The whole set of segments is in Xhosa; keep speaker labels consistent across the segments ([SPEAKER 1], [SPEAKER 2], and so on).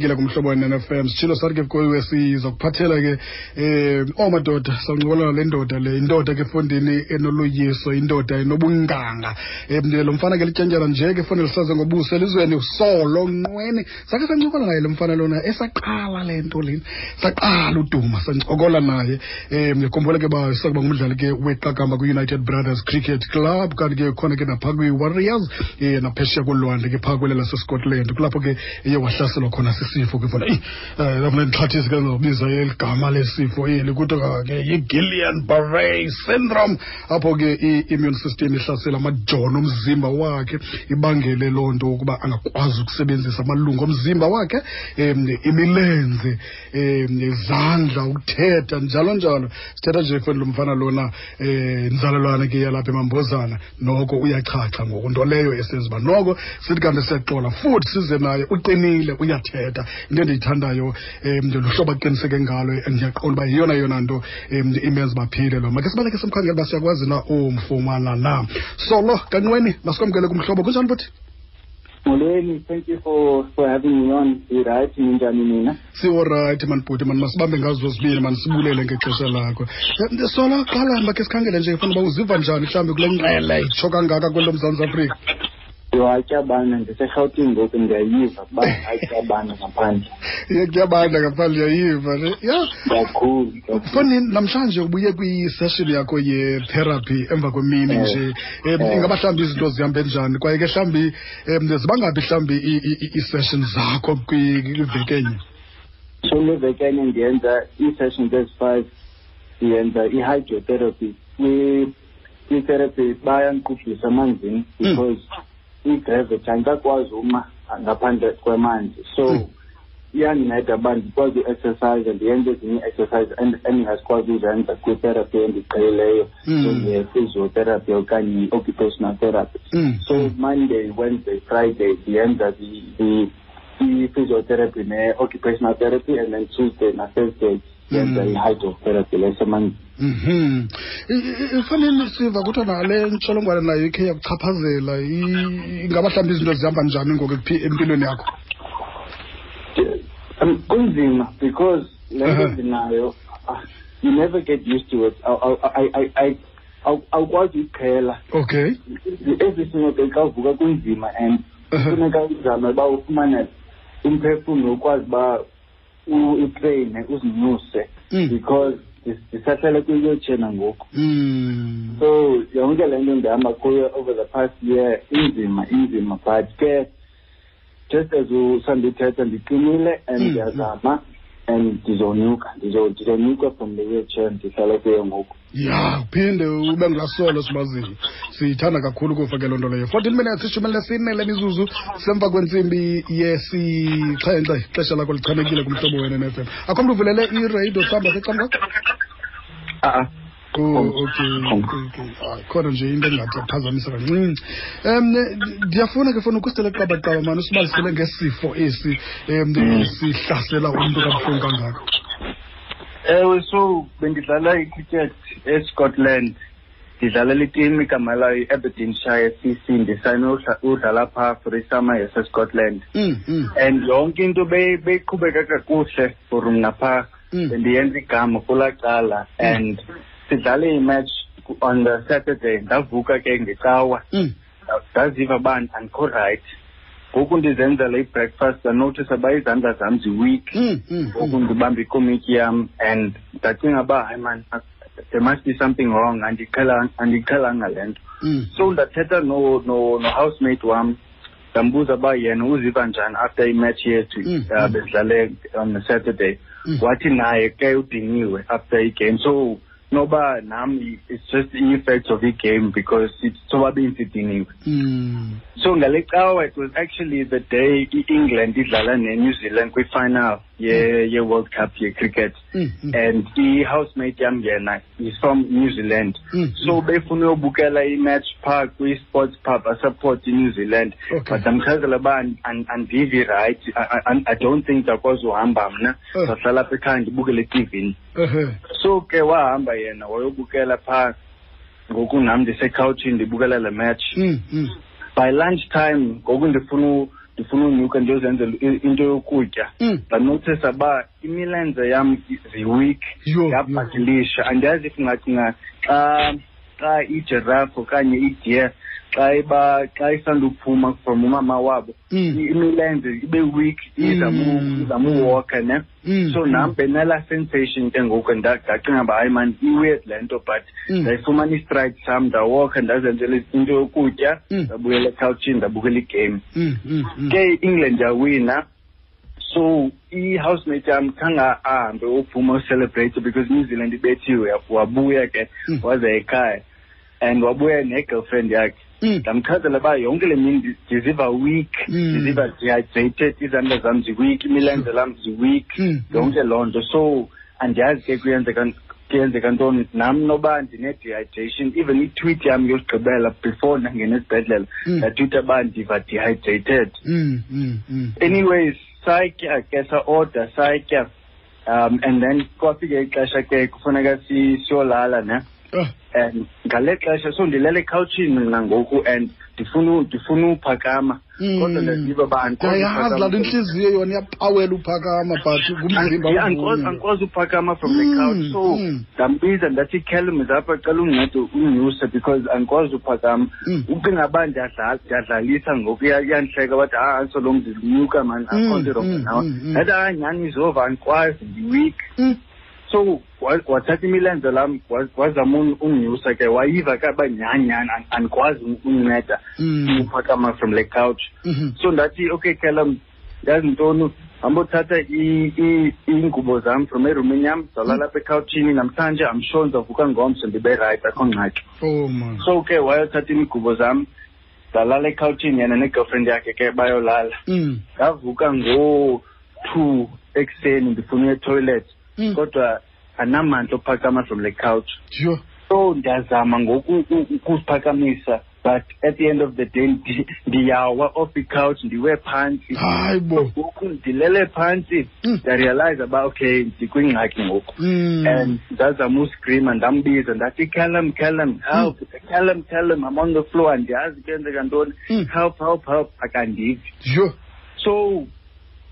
[SPEAKER 1] Kile kumhlobo wenene-FM sitshilo sathi ke kuwe sizakuphathela ke oomadoda sancokola le ndoda le indoda ke fondini enoloyiso, indoda enobunganga. Lo mfana ke lityentyana nje ke fondini lisaze ngobuso elizweni usolo nqweni. Sakhe sancokola naye lo mfana lona esaqala le nto lena, saqala uduma sancokola naye. Ndikhumbula ke uba sakuba ngumdlali ke weqakamba kwi-United Brothers Cricket Club, kanti ke khona ke naphaa kwi-Warriors, naphesheya kolwandle ke phaa kwele laseScotland, kulapho ke eye wahlaselwa khona sisifo ke fona. Lafuna ndixhathise ke ngobiza eli gama lesifo eli, kuthiwa ke yi-Guillain-Barré syndrome, apho ke i-immune system ihlasela amajoni omzimba wakhe, ibangele loo nto ukuba angakwazi ukusebenzisa amalungu omzimba wakhe, imilenze, izandla, ukuthetha, njalo njalo. Sithetha nje foni lo mfana lona, nzalelwane ke yalapha eMambozana, noko uyachacha ngoku, nto leyo esenza uba noko sithi kanti siyaxola futhi size naye. Uqinile, uyathetha. Into endiyithandayo luhlobo aqiniseke ngalo, ndiyaqonda uba yeyona yona nto imenza baphile lo. Make sibaleke simkhangele uba siyakwazi na umfumana na. Solo Kanqweni, masikwamkele kumhlobo. Kunjani futhi?
[SPEAKER 2] Molweni, thank you for having me on. Right, ninjani nina?
[SPEAKER 1] Siworayithi mani bhuti, mani masibambe ngazo zozibini, mani sibulele ngexesha lakho. Solo, qala makhe sikhangele nje funa uba uziva njani mhlawumbi kule nqele itsho kangaka kwelo Mzantsi Afrika.
[SPEAKER 2] Yho, atyabana, ndiseRhawutini ngoku, ndiyayiva uba atyabana ngaphandle.
[SPEAKER 1] Kuyabanda ngaphandle, uyayiva ne? Ya.
[SPEAKER 2] Kakhulu.
[SPEAKER 1] Fani, namhlanje ubuye kwi-session yakho ye-therapy emva kwemini nje. Ingaba mhlawumbi izinto zihambe njani? Kwaye ke mhlawumbi zibangaphi mhlawumbi ii-session zakho kwiveki enye?
[SPEAKER 2] So le veki enye ndiyenza ii-sessions ezi-5, ndiyenza i-hydrotherapy. Kwi-therapy bayandiqubhisa amanzini because i-gravity andikakwazi uma ngaphandle kwamanzi, so iyandinceda uba ndikwazi u-exercise, ndiyenze ezinye ii-exercise endingazikwazi uzenza kwi-therapy endiqhelileyo, njenge-physiotherapy okanye i-occupational therapy. So Monday, Wednesday, Friday ndiyenza i-physiotherapy ne-occupational therapy, and then Tuesday na-Thursday yenza i-hydrotherapy lesemanzini.
[SPEAKER 1] Ifanele siva kuthiwa nale ntsholongwane nayo ikhe yakuchaphazela. Ingaba mhlawumbi izinto zihamba njani ngoku empilweni yakho?
[SPEAKER 2] Kunzima because le nto ndinayo, you never get used to it. Awukwazi uyiqhela. Every single day xa uvuka kunzima, and kufuneka uzame uba ufumane umphefumlo ukwazi uba utreyine, uzinyuse, because ndisahlala kwi-wheelchair nangoku. So yonke le nto ndihamba kuyo over the past year inzima, inzima, but ke just as usandithetha, ndiqinile and ndiyazama and ndizonyuka, ndizonyuka from the wheelchair ndihlala kuyo ngoku.
[SPEAKER 1] Ya, uphinde ube ngulasolo simaziyo, siyithanda kakhulu kufa ke loo nto leyo. 14 minutes, 14 lemizuzu semva kwentsimbi yesixhenxe, ixesha lakho lichanekile kumhlobo wena ne-FM. Akho mntu uvulele iradio mhlawumbi apha ecam kwakho?
[SPEAKER 2] A-a.
[SPEAKER 1] Oh, okay. Hayi, khona nje into engathi yaphazamisa kancinci. Ndiyafuna ke funa ukusitele qabaqaba mani, usibalisele ngesifo esi sihlasela umntu kabuhlungu kangaka.
[SPEAKER 2] Ewe, so bendidlala i-cricket eScotland, ndidlalela itimu igama layo i-Aberdeenshire CC. Ndisayine udlala phaa for isummer yaseScotland. And yonke into beyiqhubeka kakuhle for mna phaa. Bendiyenza igama kulaa cala, and sidlale imatch on the Saturday. Ndavuka ke ngecawa, ndaziva uba andikho right. Ngoku ndizenzela i-breakfast, ndanothisa uba izandla zam zi-weak. Ngoku ndibamba ikomityi yam and ndacinga uba hayi man, there must be something wrong, andiqhelanga le nto. So ndathetha no-housemate wam, ndambuza uba yena uziva njani after imatch yethu, bedlale on the Saturday. Wathi naye ke udiniwe after igame, so noba nam it's just the effects of i-game because it's sobabini sidiniwe. So ngale cawa it was actually the day i-England idlala ne-New Zealand kwi-final ye-World Cup ye-cricket. And i-housemate yam yena is from New Zealand. So befuna uyobukela i-match phaa kwi-sports pub, asupport i-New Zealand. But ndamchazela uba andivi right, I don't think ndiyakwazi uhamba mna. Ndahlala apha ekhaya ndibukele etivini. So ke wahamba yena wayobukela phaa, ngoku nam ndisekhawutshini ndibukela le match. By lunch time ngoku ndifuna Ndifuna unyuka ndiyozenzela into yokutya. Ndanothisa uba imilenze yam zi-weak, yabhakilisha. Andiyazi if ungacinga xa ijirafu okanye i-deer xa iba xa isanduphuma from umama wabo, imilenze ibe weak, izama uwalka, ne. So nam benala sensation ke ngoku, ndacinga uba hayi man, i-weird le nto, but ndayifumana i-stride sam, ndawalka, ndazenzela into yokutya, ndabuyela ekhawutshini, ndabukela igame. Ke i-England yawina, so i-housemate yam khange ahambe uphuma ucelebrate because New Zealand ibethiwe. Wabuya ke, waza ekhaya and wabuya ne-girlfriend yakhe. Ndamchazela uba yonke le mini ndiziva weak, ndiziva dehydrated, izandla zam zi-weak, imilenze lam zi-weak, yonke loo nto. So andiyazi ke kuyenzeka ntoni nam, noba ndine-dehydration. Even i-tweet yam yokugqibela before ndangena esibhedlela, ndatweeta uba ndiva dehydrated. Anyways, satya ke, sa-order, satya, and then kwafika ixesha ke kufuneka siyolala, ne. And ngale xesha, so ndilele ekhawutshini mna ngoku and ndifuna uphakama, kodwa ndaziva uba andikwazi.
[SPEAKER 1] Ndiyayazi laa nto, intliziyo yona iyapawela uphakama, but ngumzimba.
[SPEAKER 2] Andikwazi uphakama from the couch. So ndambiza, ndathi, "Callum, apha, cela undincede undinyuse because andikwazi uphakama." Ucinga uba ndiyadlalisa ngoku, iyandihleka, bathi, "Ha, anso lo ndinyuka mani, akho nto i-wrong nawe." Ndathi, "Hayi, nyhani izova, andikwazi, ndi-weak." So wathatha imilenze lam, wazama undinyusa ke, wayiva ke uba nyhani nyhani andikwazi undinceda uphakama from le couch. So ndathi, "Okay Callum, yazi ntoni, hamba uthatha iingubo zam from erumini yam, zalala apha ekhawutshini namhlanje. I'm sure ndizavuka ngomso ndibe right, akho ngxaki."
[SPEAKER 1] Oh man.
[SPEAKER 2] So ke wayothatha iingubo zam, ndalala ekhawutshini, yena ne-girlfriend yakhe ke bayolala. Ndavuka ngo-2 ekuseni, ndifuna uya etoilet, kodwa andinamandla ophakama from le couch. So ndiyazama ngoku ukuziphakamisa, but at the end of the day ndiyawa off i-couch, ndiwe phantsi.
[SPEAKER 1] Hayi bo.
[SPEAKER 2] Ngoku ndilele phantsi, ndarealize uba okay, ndikwingxaki ngoku. And ndazama uscreama, ndambiza, ndathi, "Callum, Callum, help! Callum, Callum, I'm on the floor, andiyazi kuyenzeka ntoni. Help, help, help." Akandivi. So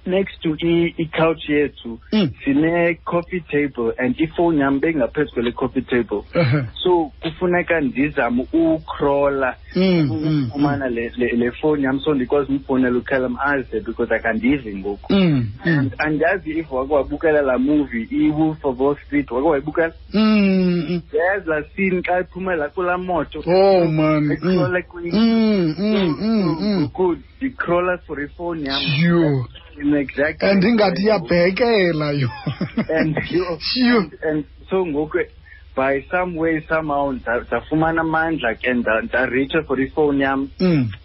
[SPEAKER 2] next to i-couch yethu sine-coffee table and ifowuni yam bengaphezu kwele coffee table. So kufuneka ndizame ucrawla ukufumana le fowuni yam, so ndikwazi umfowunela uCallum aze because akandivi ngoku. And andiyazi if wake wabukela laa movie, i-Wolf of Wall Street, wake wayibukela? Yazi laa scene xa iphumela kulaa moto?
[SPEAKER 1] Oh man.
[SPEAKER 2] Ecrawla ngoku ndicrawla for ifowuni yam. Exactly.
[SPEAKER 1] And ingathi iyabhekela yo.
[SPEAKER 2] And yo, and so ngoku by some way somehow ndafumana amandla ke, ndareacha for ifowuni yam.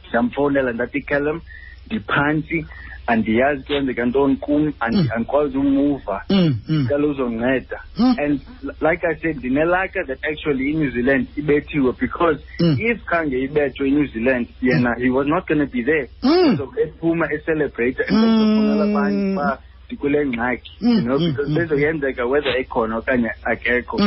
[SPEAKER 2] Ndamfowunela, ndathi, "Callum, ndiphantsi, andiyazi kuyenzeka ntoni kum, andikwazi umuva, cela uzonceda." And like I said, ndinelaka that actually iNew Zealand ibethiwe, because if khange ibethwe iNew Zealand, yena he was not going to be there. So ephuma ecelebrate and ezofonela abanye uba ndikule ngxaki, because bezoyenzeka whether ekhona okanye akekho.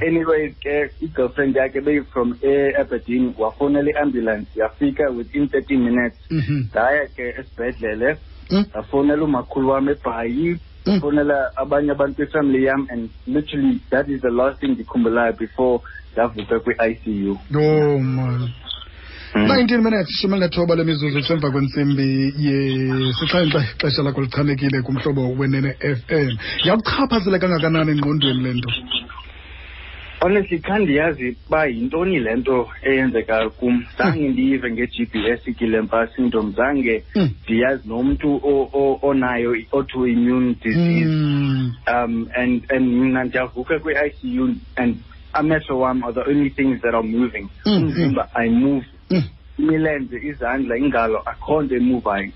[SPEAKER 2] Anyway ke, i-girlfriend yakhe beyi-from e-Aberdeen, wafowunela i-ambulance, yafika within 30 minutes. Ndaya ke esibhedlele, ndafowunela umakhulu wam eBhayi, ndafowunela abanye abantu kwifamily yam, and literally that is the last thing ndikhumbulayo before ndavuka kwi-ICU.
[SPEAKER 1] Oh man. 19 minutes, 19 lemizuzu kusemva kwentsimbi yesixhenxe, ixesha lakho lichanekile kuMhlobo Wenene FM. Yakuchaphazela kangakanani engqondweni le nto?
[SPEAKER 2] Honestly, khandiyazi uba yintoni le nto eyenzeka kum. Zange ndiyive nge-GBS, Guillain-Barré syndrome, zange ndiyazi nomntu onayo i-autoimmune disease. And mna ndiyavuka kwi-ICU and amehlo wam are the only things that are moving. Umzimba ayimove, imilenze, izandla, ingalo, akho nto emuvayo,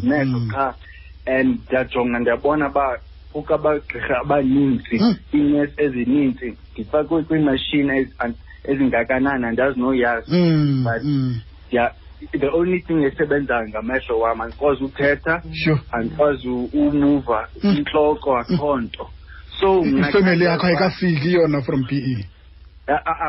[SPEAKER 2] mehlo qha. And ndiyajonga, ndiyabona uba kukho abagqirha abaninzi, iinesi ezininzi, ndifakwe kwiimashini ezingakanani, andazi noyazi, but yeah, the only thing esebenzayo ngamehlo wam. Andikwazi uthetha, andikwazi umuva, intloko, akho nto. So mna
[SPEAKER 1] Ifemeli yakho ayikafiki yona from PE?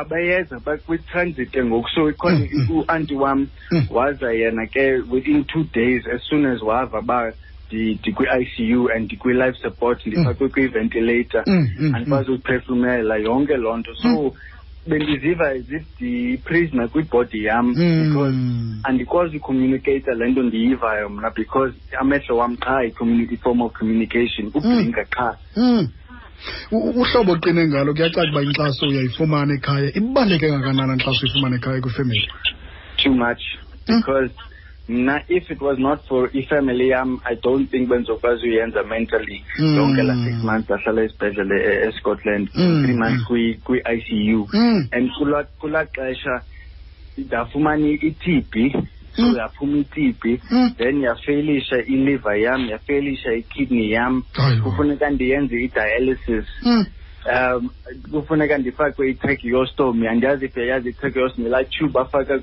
[SPEAKER 2] Abayeza bakwi-transit ke ngoku, so ikhona u-anti wam waza yena ke within 2 days as soon as wava uba ndikwi-ICU and ndikwi-life support, ndifakwe kwi-ventilator, andikwazi uziphefumela, yonke loo nto. So bendiziva as if ndiyi-prisoner kwibody yam because andikwazi ucommunicate le nto ndiyivayo mna, because amehlo wam qha i-form of communication, ublinka qha.
[SPEAKER 1] Uhlobo oqine ngalo, kuyacaca uba inkxaso uyayifumana ekhaya. Ibaluleke kangakanani inkxaso uyifumana ekhaya kwifemeli?
[SPEAKER 2] Too much, because mna, if it was not for ifamily yam, I don't think bendizokwazi uyenza mentally yonke la 6 months ahlala esibhedlele eScotland, 3 months kwi-ICU. And kulaa xesha ndafumana i-TB, so yaphuma i-TB, then yafailisha iliver yam, yafailisha ikidney yam.
[SPEAKER 1] Hayi bo.
[SPEAKER 2] Kufuneka ndiyenze i-dialysis, kufuneka ndifakwe i-tracheostomy. Andiyazi if uyayazi i-tracheostomy, laa tube afaka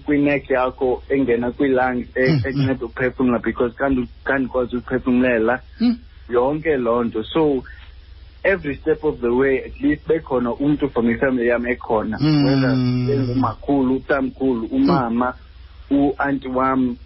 [SPEAKER 2] kwi-neck yakho engena kwii-lungs, ekunceda ukuphefumla, because kandikwazi ukuphefumlela yonke loo nto. So every step of the way, at least bekhona umntu from ifamily yam ekhona, whether bengumakhulu, utamkhulu, umama, u-anti wam,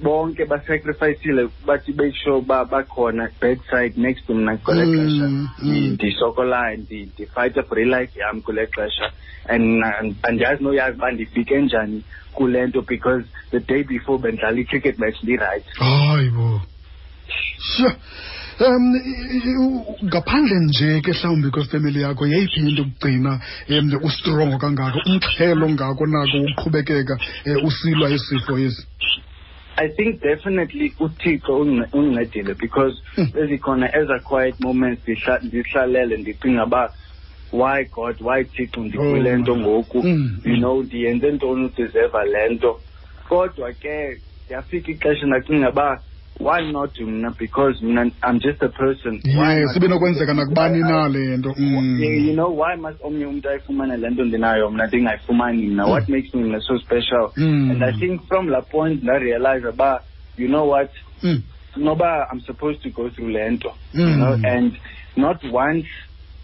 [SPEAKER 2] bonke basacrificile bathi make sure uba bakhona bedside next to mna kule xesha ndisokolayo, ndifayitha for ilife yam kule xesha. And andiyazi noyazi uba ndifike njani kule nto, because the day before bendidlala i-cricket match, ndi-right.
[SPEAKER 1] Hayi bo, sure. Ngaphandle nje ke mhlawumbi kwefemeli yakho, yeyiphi into ukugcina ustrongo kangako, umxhelo ngako nako uqhubekeka usilwa isifo esi?
[SPEAKER 2] I think definitely uThixo undincedile, because bezikhona eza quiet moments ndihlalele ndicinga uba why God, why Thixo, ndikule nto ngoku, you know ndiyenze ntoni udeserva le nto? Kodwa ke yafika ixesha ndacinga uba why not mna, because mna I'm just a person.
[SPEAKER 1] Why yes, ibinokwenzeka nakubani na le nto.
[SPEAKER 2] Yeah, why must omnye umntu ayifumane le nto ndinayo, mna ndingayifumani mna? What makes me mna so special? And I think from la point ndarealize uba, you know what, noba I'm supposed to go through le nto, and not once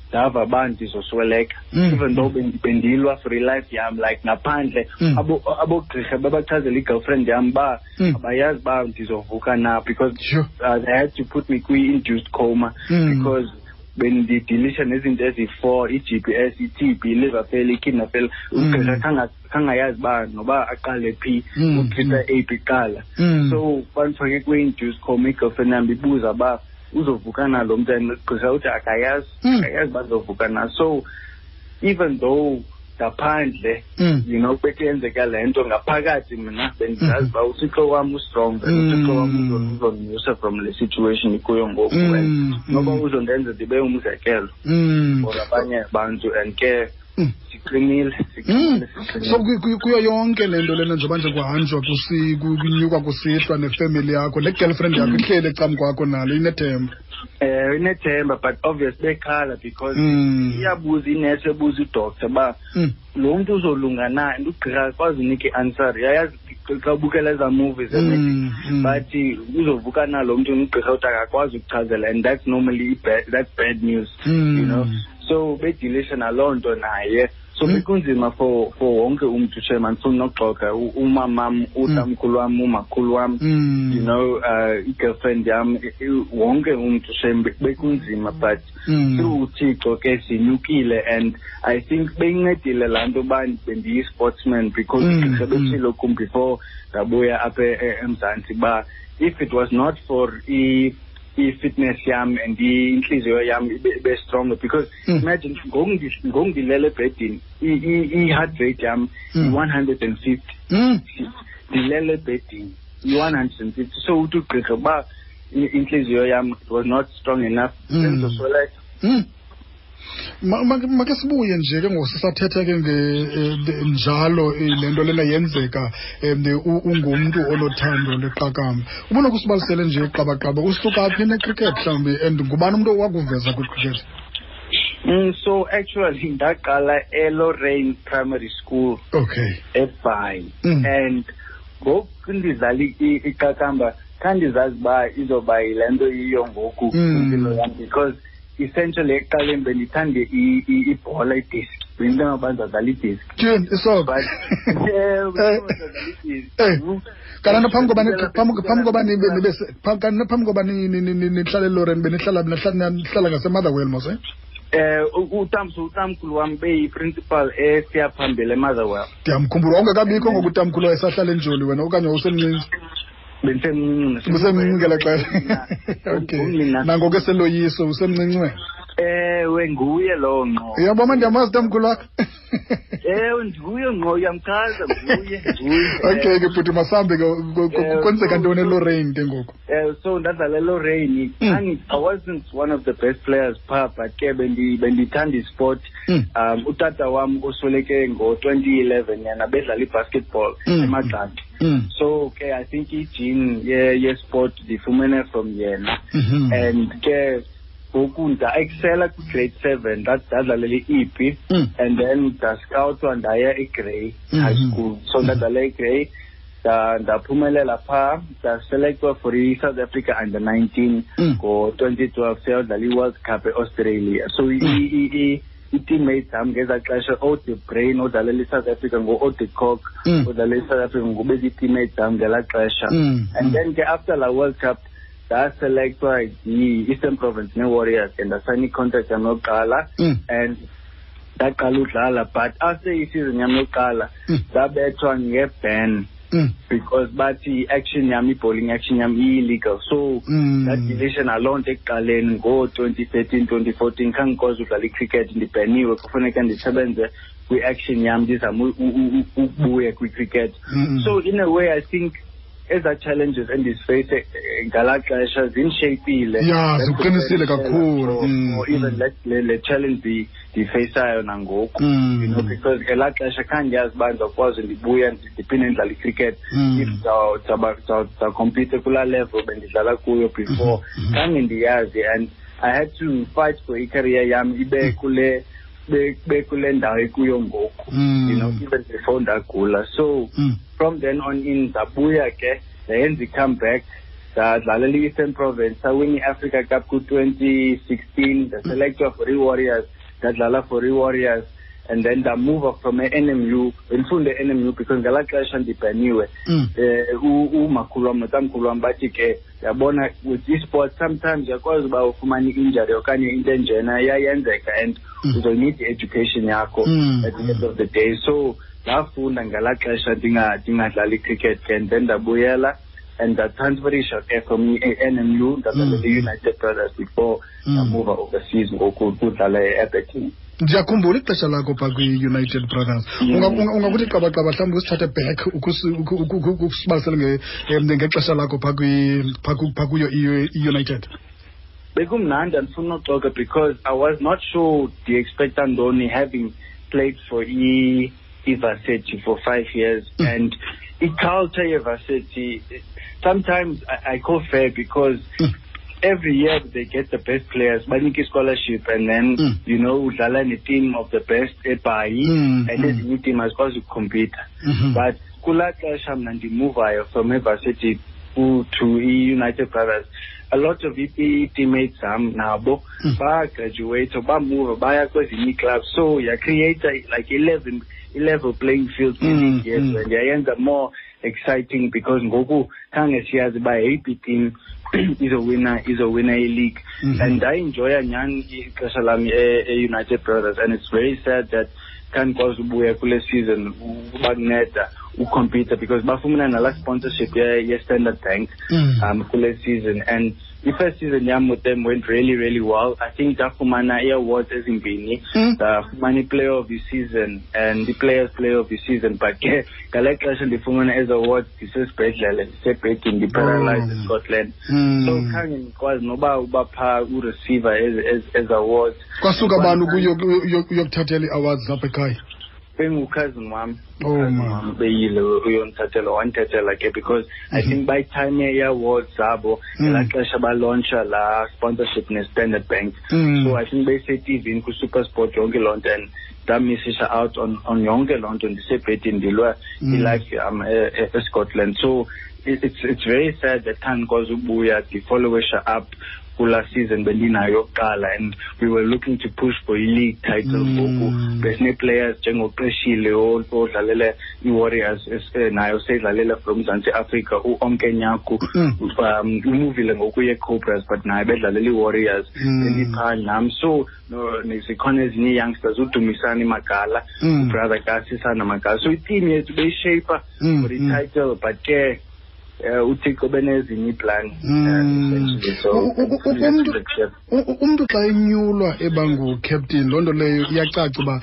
[SPEAKER 2] ndava uba ndizosweleka, even though bendilwa for ilife yam, like ngaphandle abogqirha babachazela i-girlfriend yam uba abayazi uba ndizovuka na, because they had to put me kwi-induced coma because bendidilisha nezinto eziyi-four: i-GBS, i-TB, i-liver failure, i-kidney failure. Ugqirha khangayazi uba noba aqale phi, utreata eyiphi kuqala. So bandifake kwi-induced coma, i-girlfriend yam ibuza uba uzovuka na lo mntu, and ugqirha uthi akayazi, akayazi uba uzovuka na. So even though ngaphandle bekuyenzeka le nto, ngaphakathi mna bendizazi uba uThixo wam ustrong and uThixo wam uzondinyusa from le situation ikuyo ngoku, and noba uzondenza ndibe umzekelo for abanye abantu, and ke siqinile, siqinile, siqinile.
[SPEAKER 1] So kuyo yonke le nto lena, njengoba nje kuhanjwa, kunyukwa kusihlwa nefemeli yakho, le girlfriend yakho ihleli ecam kwakho nalo inethemba?
[SPEAKER 2] Inethemba, but obvious bekhala because iyabuza inesi, ebuza udoctor uba lo mntu uzolunga na, and ugqirha akwazi unika i-answer. Uyayazi xa ubukela ezaa movies bathi uzovuka na lo mntu, ugqirha uthi akakwazi ukuchazela, and that's normally that's bad news, so bedilisha naloo nto naye. So bekunzima for wonke umntu, shem, andifuni nokuxoka. Umamam, utamkhulu wam, umakhulu wam, i-girlfriend yam, wonke umntu, shem, bekunzima, but through uThixo ke sinyukile. And I think beyincedile laa nto uba bendiyi-sportsman, because ugqirha betshilo kum before ndabuya apha eMzantsi uba if it was not for i-fitness yam and intliziyo yam ibe stronger, because imagine ngoku ndilele ebhedini, i-heart rate yam i-150. Ndilele ebhedini, i-150. So uthi ugqirha uba intliziyo yam it was not strong enough, bendizosweleka.
[SPEAKER 1] Make sibuye nje ke ngoku, sisathetha ke njalo, le nto lena yenzeka, ungumntu onothando leqakamba. Ubona kusibalisele nje qabaqaba, usuka phi necricket mhlawumbi, and ngubani umntu owakuveza kwicricket?
[SPEAKER 2] So actually ndaqala eLorraine Primary School eBhayi, and ngoku ndidlala iqakamba khandizazi uba izoba yile nto yiyo ngoku impilo yam, because essentially ekuqaleni bendithande ibhola, idiski. Bendinto yoba ndizawudlala idiski.
[SPEAKER 1] Tyhini, isoka.
[SPEAKER 2] But ewe, ndizawudlala idiski.
[SPEAKER 1] Kanti phambi koba phambi koba nibe nibe kanti phambi koba nihlale eLorraine, benihlala nihlala ngaseMotherwell mos, eh?
[SPEAKER 2] Utamkhulu wam beyi-principal esiyaphambili eMotherwell.
[SPEAKER 1] Ndiyamkhumbula, wawungekabikho ngoku utamkhulu wayesahlala eNjoli wena okanye wawusemncinci?
[SPEAKER 2] Bendisemncinci.
[SPEAKER 1] Usemncinci ngelaa xesha. Okay. Nangoku eseloyiso usemncinci wena?
[SPEAKER 2] Ewe, nguye lowo ngqo.
[SPEAKER 1] Uyabona, ndiyamazi utamkhulu wakho.
[SPEAKER 2] Ewe, nguye ngqo, uyamchaza, nguye, nguye.
[SPEAKER 1] Okay ke bhuti, masambe ke, kwenzeka ntoni eLorraine ke ngoku?
[SPEAKER 2] So ndadlala eLorraine. I wasn't one of the best players phaa, but ke bendithanda isport. Utata wam osweleke ngo-2011, yena bedlala i-basketball eMagxaki. So ke I think i-gene ye-sport ndifumene from yena. And ke ngoku nda-excela kwi-grade 7, ndadlalela i-E P, and then ndascoutwa ndaya eGrey High School. So ndadlala eGrey, ndaphumelela phaa, ndaselectwa for i-South Africa under 19 ngo-2012, siyodlala i-World Cup e-Australia. So i-teammates zam ngezaa xesha, oDe Brain odlalela i-South Africa, ngo-Ode Kock odlalela i-South Africa, ngobezi-teammates zam ngelaa xesha. And then ke after la World Cup ndaselectwa yi-Eastern Province ne-Warriors, and ndasayina i-contract yam yokuqala, and ndaqala udlala. But after i-season yam yokuqala ndabethwa nge-ban because bathi i-action yam, i-bowling action yam i-illegal. So ndadilisha naloo nto ekuqaleni ngo-2013, 2014, khange ndikwazi udlala i-cricket, ndibheniwe, kufuneka ndisebenze kwi-action yam, ndizame ukubuya kwi-cricket. So in a way I think ezaa challenges endiziface ngalaa xesha zindisheyipile.
[SPEAKER 1] Ya, ziqinisile kakhulu.
[SPEAKER 2] Or even le challenge ndiyifaceayo nangoku, because ngelaa xesha khange ndiyazi uba ndizawukwazi ndibuya ndiphinde ndidlale i-cricket, if ndizawucompete kulaa level bendidlala kuyo before. Khange ndiyazi, and I had to fight for i-career yam ibe kule ndawo ikuyo ngoku, even before ndagula. So from then on in ndabuya ke, ndayenza i-comeback, ndadlalela i-Eastern Province, sawina i-Africa Cup ku-2016, ndaselectwa for i-Warriors, ndadlala for i-Warriors, and then ndamuva from e-NMU, bendifunda e-NMU because ngelaa xesha ndibhaniwe. Umakhulu wam notamkhulu wam bathi ke, yabona, with e-sport sometimes uyakwazi uba ufumane i-injury okanye into enjena iyayenzeka, and uzoyinida i-education yakho at the end of the day. So ndafunda ngelaa xesha ndingadlali i-cricket ke, and then ndabuyela and ndatransferisha ke from i-NMU, ndadlalela i-United Brothers before ndamuva overseas ngoku kudlala e-Aberdeen.
[SPEAKER 1] Ndiyakhumbula ixesha lakho phaa kwi-United Brothers. Ungakuthi qabaqaba mhlawumbi usithathe back ukusibalisele ngexesha lakho phaa kuyo i-United.
[SPEAKER 2] Bekumnandi, andifuni uxoka, because I was not sure ndi-expecta ntoni having played for i-varsity for 5 years. And i-culture ye-varsity, sometimes I call fair because every year they get the best players, banike scholarship, and then, udlala ne-team of the best eBhayi, and ezinye iteam azikwazi ukucompete. But kulaa xesha mna ndimuvayo from evarsity to i-United Brothers, a lot of i-teammates zam nabo bagraduate, bamuva baya kwezinye ii-clubs. So yacreate like 11 playing field yes, and yayenza more exciting because ngoku khange siyazi uba yeyiphi team izowina i-league. And I enjoy nyhani ixesha lam e-United Brothers, and it's very sad that khandikwazi ubuya kule season ubanceda ucompete because bafumana nala sponsorship ye-Standard Bank kule season. And the first season yam with them went really, really well. I think ndafumana ii-awards ezimbini. Ndafumana i-player of the season and the players player of the season. But ke ngale xesha ndifumana ezi awards ndisesibhedlele, ndisebhedini, ndiparalyzed eScotland. So khange ndikwazi noba uba phaa ureceiver ezi awards.
[SPEAKER 1] Kwasuka bani uyokuthathela ii-awards apha ekhaya?
[SPEAKER 2] Bengucousin wam.
[SPEAKER 1] Oh,
[SPEAKER 2] Cousin
[SPEAKER 1] man.
[SPEAKER 2] wam beyile uyondithathela, wandithathela ke because I think by time ye-awards zabo, ngelaa xesha balauncha laa sponsorship ne-Standard Bank. So I think beyise-T V ku-SuperSport yonke loo nto, and ndamisisha out on yonke loo nto, ndisebhedini ndilwa ilife yam eScotland. So It's very sad that khange ndikwazi ubuya ndifollowisha up kulaa season bendinayo yokuqala, and we were looking to push for i-league title. Ngoku besinee-players njengoQeshile odlalele i-Warriors, naye useyidlalele from Mzantsi Afrika, uOnke Nyaku, umuvile ngoku ye-Cobras, but naye bedlalela i-Warriors. Bendiphaa nam, so zikhona ezinye ii-youngsters, uDumisani Magala, ubrother kaSisana Magala. So iteam yethu beyishape for i-title, but ke uThixo benezinye iiplan, essentially. So
[SPEAKER 1] Umntu xa enyulwa eba ngucaptain, loo nto leyo iyacaca uba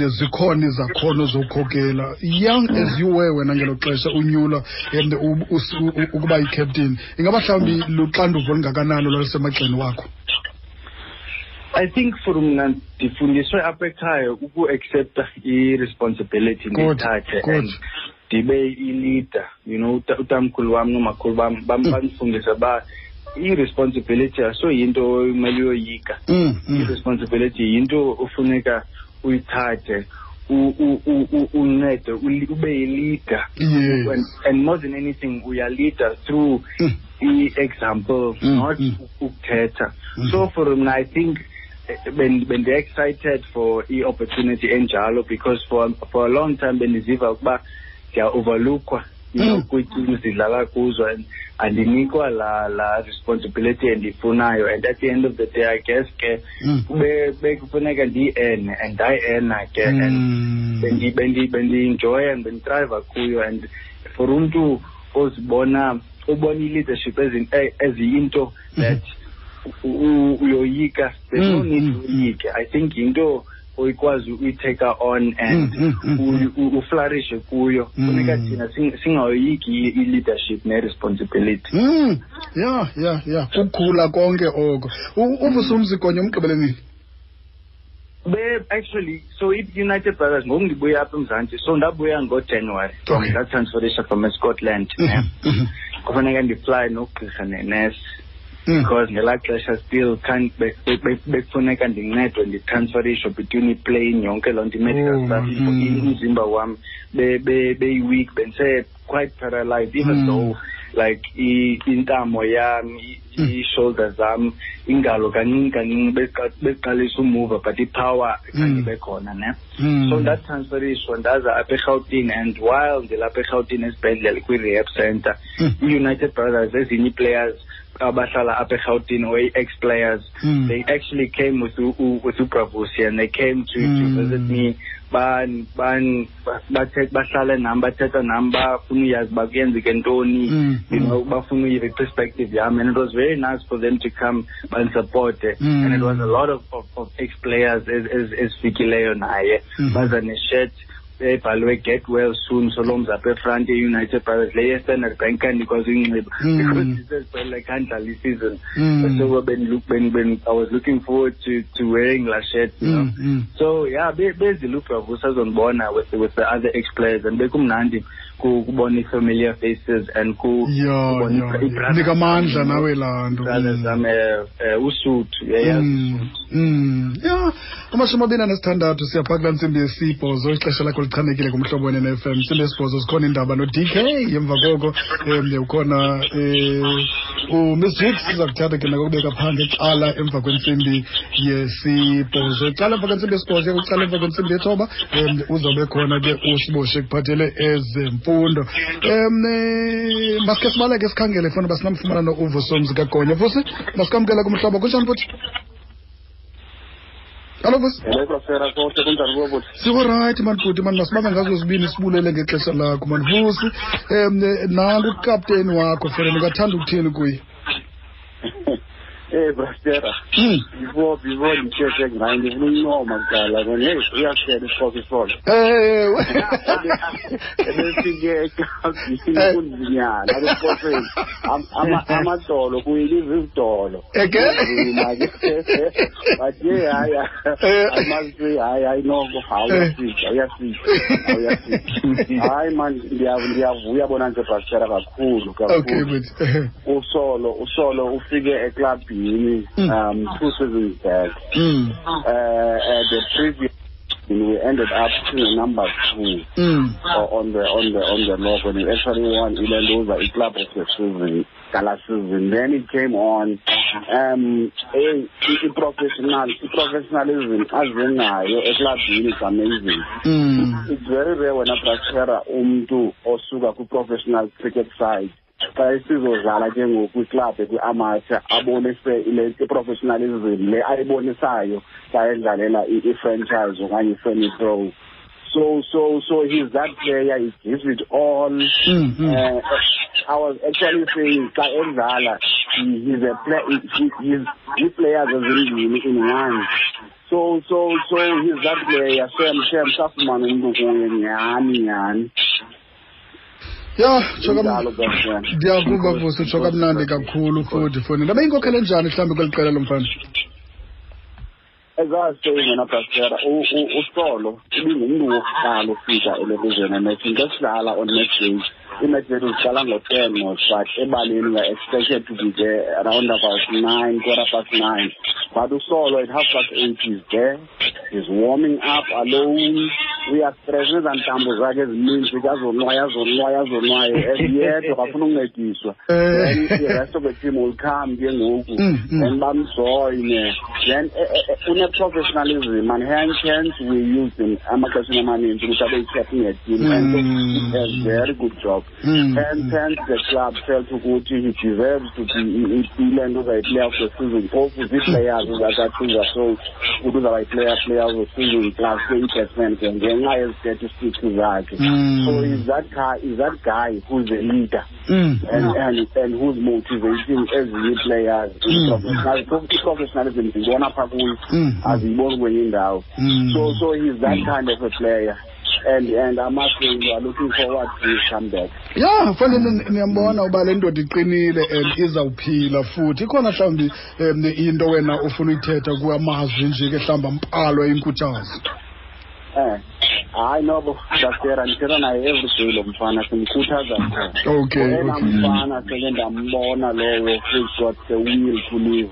[SPEAKER 1] zikhona izakhono zokhokela. Young as you were wena ngelo xesha unyulwa ukuba yi-captain, ingaba mhlawumbi luxanduva olungakanani olwalusemagxeni wakho?
[SPEAKER 2] I think for mna, ndifundiswe apha ekhaya uku-accepta i-responsibility, ndiyithathe and ndibe i-leader. Utamkhulu wam nomakhulu bam bandifundisa uba i-responsibility asoyinto omele uyoyika. I-responsibility yinto ofuneka uyithathe, uncede, ube yi-leader. And more than anything, uyaleader through i-example, not ukuthetha. So for mna, I think bendi-excited for i-opportunity enjalo, because for a long time bendiziva ukuba ndiya-overlookwa kwii-teams ndidlala kuzo, and andinikwa la responsibility endiyifunayo. And at the end of the day, I guess ke kube bekufuneka ndiyi-earne, and ndayi-earna ke, and bendi-enjoya and benditriva kuyo. And for umntu ozibona, ubona i-leadership eziyinto that uyoyika, there's no need uyoyike. I think yinto oyikwazi uyitake on and uflourishe kuyo. Funeka thina singayoyiki i-leadership ne-responsibility.
[SPEAKER 1] Ya, kukhula konke oko. UVusumzi Gonya umgqibele nini?
[SPEAKER 2] Be actually, so i-United Brothers, ngoku ndibuya apha eMzantsi, so ndabuya ngoJanuary from ndatransferisha from eScotland, ne. Kufuneka ndifly nogqirha nenesi, because ngelaa xesha still can't bekufuneka ndincedwe nditransferishwe between iplane, yonke loo nto, i-medical stuff. Umzimba wam beyi-weak, bendise quite paralyzed, even though like intamo yam, ii-shoulders zam, ingalo kancinci kancinci beqalisa umuva, but ipower khange ibe khona, ne. So ndatransferishwa ndaza apha eRhawutini, and while ndilapha eRhawutini esibhedlele kwi-rehab center, i-United Brothers, ezinye ii-players abahlala apha eRhawutini or i-ex-players, they actually came with uBra Vusi, and they came to visit me, ban ban bathe bahlale nam, bathetha nam, bafuna uyazi uba kuyenzeke ntoni, bafuna uyiva i-perspective yam, and it was very nice for them to come bandisupporte. And it was a lot of ex-players ezifikileyo naye, baza neshirt ebhalwe "Get well soon Solomzi" apha efront, ye-United Brothers, le ye-Standard Bank kandikwazi uyinxiba because ndisesibhedlele, khandlala isizini. So I was looking forward to wearing la shirt. So yeah, bezile uBra Vusi azondibona with the other ex-players, and bekumnandi kubona i-familiar faces and kubona i-brothers
[SPEAKER 1] Nika amandla nawe laa nto.
[SPEAKER 2] Brothers zam, uSuthu, uyayazi.
[SPEAKER 1] Ya, 26 siyapha kulaa ntsimbi yesibhozo. Ixesha lakho lichanekile kuMhlobo Wenene FM. Ntsimbi yesibhozo zikhona iindaba no-DK. Emva koko ukhona uMiss Jiks, siza kuthatha ke nakokubeka phaa ngecala emva kwentsimbi yesibhozo. Icala emva kwentsimbi yesibhozo, kucala emva kwentsimbi yethoba, uzawube khona ke uSiboshe kuphathele ezemfundo. Masike sibaleke sikhangele funa uba sinamfumana no-uVusumzi kaGonya. Vusi, masikamkela kumhlobo. Kunjani futhi? Hallo Vusi.
[SPEAKER 3] Hello Brafera, konke kunjani kuwe bhuti?
[SPEAKER 1] Sikurayithi mani bhuti mani, masibambe ngazo zibini, sibulele ngexesha lakho mani Vusi. Nangu ukapteni wakho fana, ungathanda ukuthini kuye?
[SPEAKER 3] Eh Brafera, before ndithethe ngaye ndifuna uncoma kuqala kona, hey, uyasela isiXhosa isolo.
[SPEAKER 1] Ewe.
[SPEAKER 3] Ebefike eklabhini kunzinyana esiXhoseni. Amadolo kuyiliza izidolo.
[SPEAKER 1] Eke?
[SPEAKER 3] Kunzima ke. But yeah, hayi, I must say, hayi, hayi noko, hayi uyafika, uyafika, uyafika. Hayi man, ndiyavuya bona nje Brafera kakhulu kakhulu.
[SPEAKER 1] Bhuti.
[SPEAKER 3] Usolo ufike eklabhini 2 seasons back. The previous We ended up in number 2 on the log when we actually won ilentuza, i-club of the season, gala season. Then it came on i-professionalism azenayo eklabhini is amazing. It's very rare wena, Brasera, umntu osuka kwi-professional cricket side, xa esizodlala ke ngoku kwiklabhu kwi-amateur, abonise ile i-professionalism le ayibonisayo xa edlalela i-franchise okanye i-semi-pro. So he's that player. He gives it all. I was actually saying, xa edlala, he's a play, he's ii-players ezimbini in one. So he's that player. Shem, safumana umntu kuye nyhani nyhani.
[SPEAKER 1] Ya, tsho.
[SPEAKER 3] Injalo, Brasera.
[SPEAKER 1] Ndiyakuva, Vusi, utsho kamnandi kakhulu futhi foni ndabe yinkokhele njani mhlawumbi kweli qela lo mfana?
[SPEAKER 3] As I was saying, wena Brasera, uSolo ibingumntu wokuqala ufika elokuzweni ematchini. Xa sidlala on match days, i-match zethu ziqala ngo-10, but ebaleni we are expected to be there around about 9, 9:15, but uSolo at 8:30 is there. He's warming up alone. Uyastress nezaa ntambo zakhe ezininzi, kazonwaya, azonwaya, azonwaye yedwa, kafuna uncediswa. Then the rest of the team will come ke ngoku, then bamjoyine. Then une-professionalism, and hence we use him amaxesheni amaninzi ukuthi abe yi-captain yeteam, and he has very good job. Hence the club felt ukuthi he deserves to be ile nto uzayi-player of the season. Phofu zii-players zacacinga so ukuthi uzawuba yi-player of the season plus ke i-batsman ke ngenxa yezi-statistics zakhe. So he's that guy who's a leader and who's motivating ezinye ii-players. I-professionalism ndiyibona phaa kuyo, aziyiboni kwenye indawo. So he's that kind of a player, and I must say we are looking forward to his comeback.
[SPEAKER 1] Ya, fanele niyambona uba le ndoda iqinile and izawuphila futhi. Ikhona mhlawumbi into wena ufuna uyithetha kuamazwi nje ke, mhlawumbi ambalwa, inkuthazo?
[SPEAKER 3] Hayi nobo, Brasera, ndithetha naye every day lo mfana, simkhuthaza qho. Oyena mfana seke ndambona lowo who's got the will to live.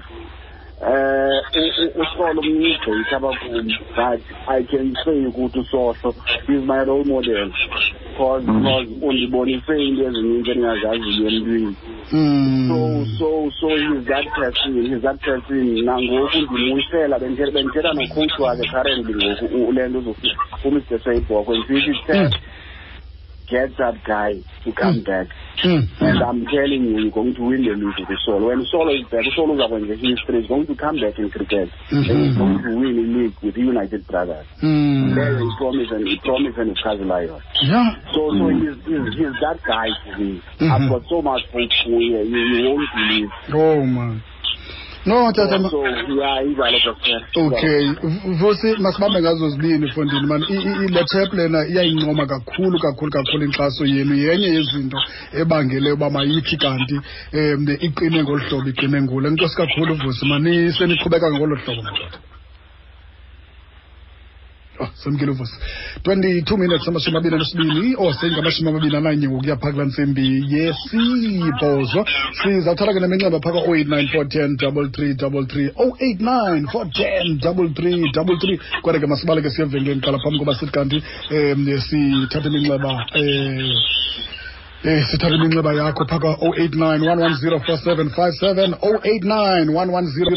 [SPEAKER 3] USolo mncinci gqitha abakum, but I can say ukuthi uSohlo is my role model because undibonise into ezininzi endingazaziyo emntwini. So he's that person, he's that person. Nangoku ndimuyisela, bendithetha nocoach wakhe currently ngoku, le nto uMr Seyibhoko, ndisithi, "Get that guy to come back." And I'm telling you, you're going to win the league with Solo. When Solo is back, Solo is going to history, is going to come back in cricket. And he's going to win the league with the United Brothers. There is promise and he promise and Lion. So he's that guy to me. I've got so much hope for you. You won't believe.
[SPEAKER 1] Oh man. No, tata.
[SPEAKER 3] So yeah, injalo, Pastor.
[SPEAKER 1] Okay, Vusi, masibambe ngazo zibini fondini man. Le chap lena iyayincoma kakhulu kakhulu kakhulu inkxaso yenu. Yenye yezinto ebangele uba mayithi kanti iqine ngolu hlobo iqine ngulo. Enkosi kakhulu, Vusi, maniseniqhubeka ngolo hlobo, madoda. Oh, semkile uVusi. 22 minutes 22, oh, seyinga-21 ngokuya phaa kulaa ntsimbi yesibhozo. Sizawuthatha ke neminxeba phaa ka-089 410 3333, 089 410 3333. Kodwa ke masibaleke siye evenkileni kuqala phambi koba sithi kanti sithathe iminxeba, sithathe iminxeba yakho phaa ka-089 110 4757, 089 110.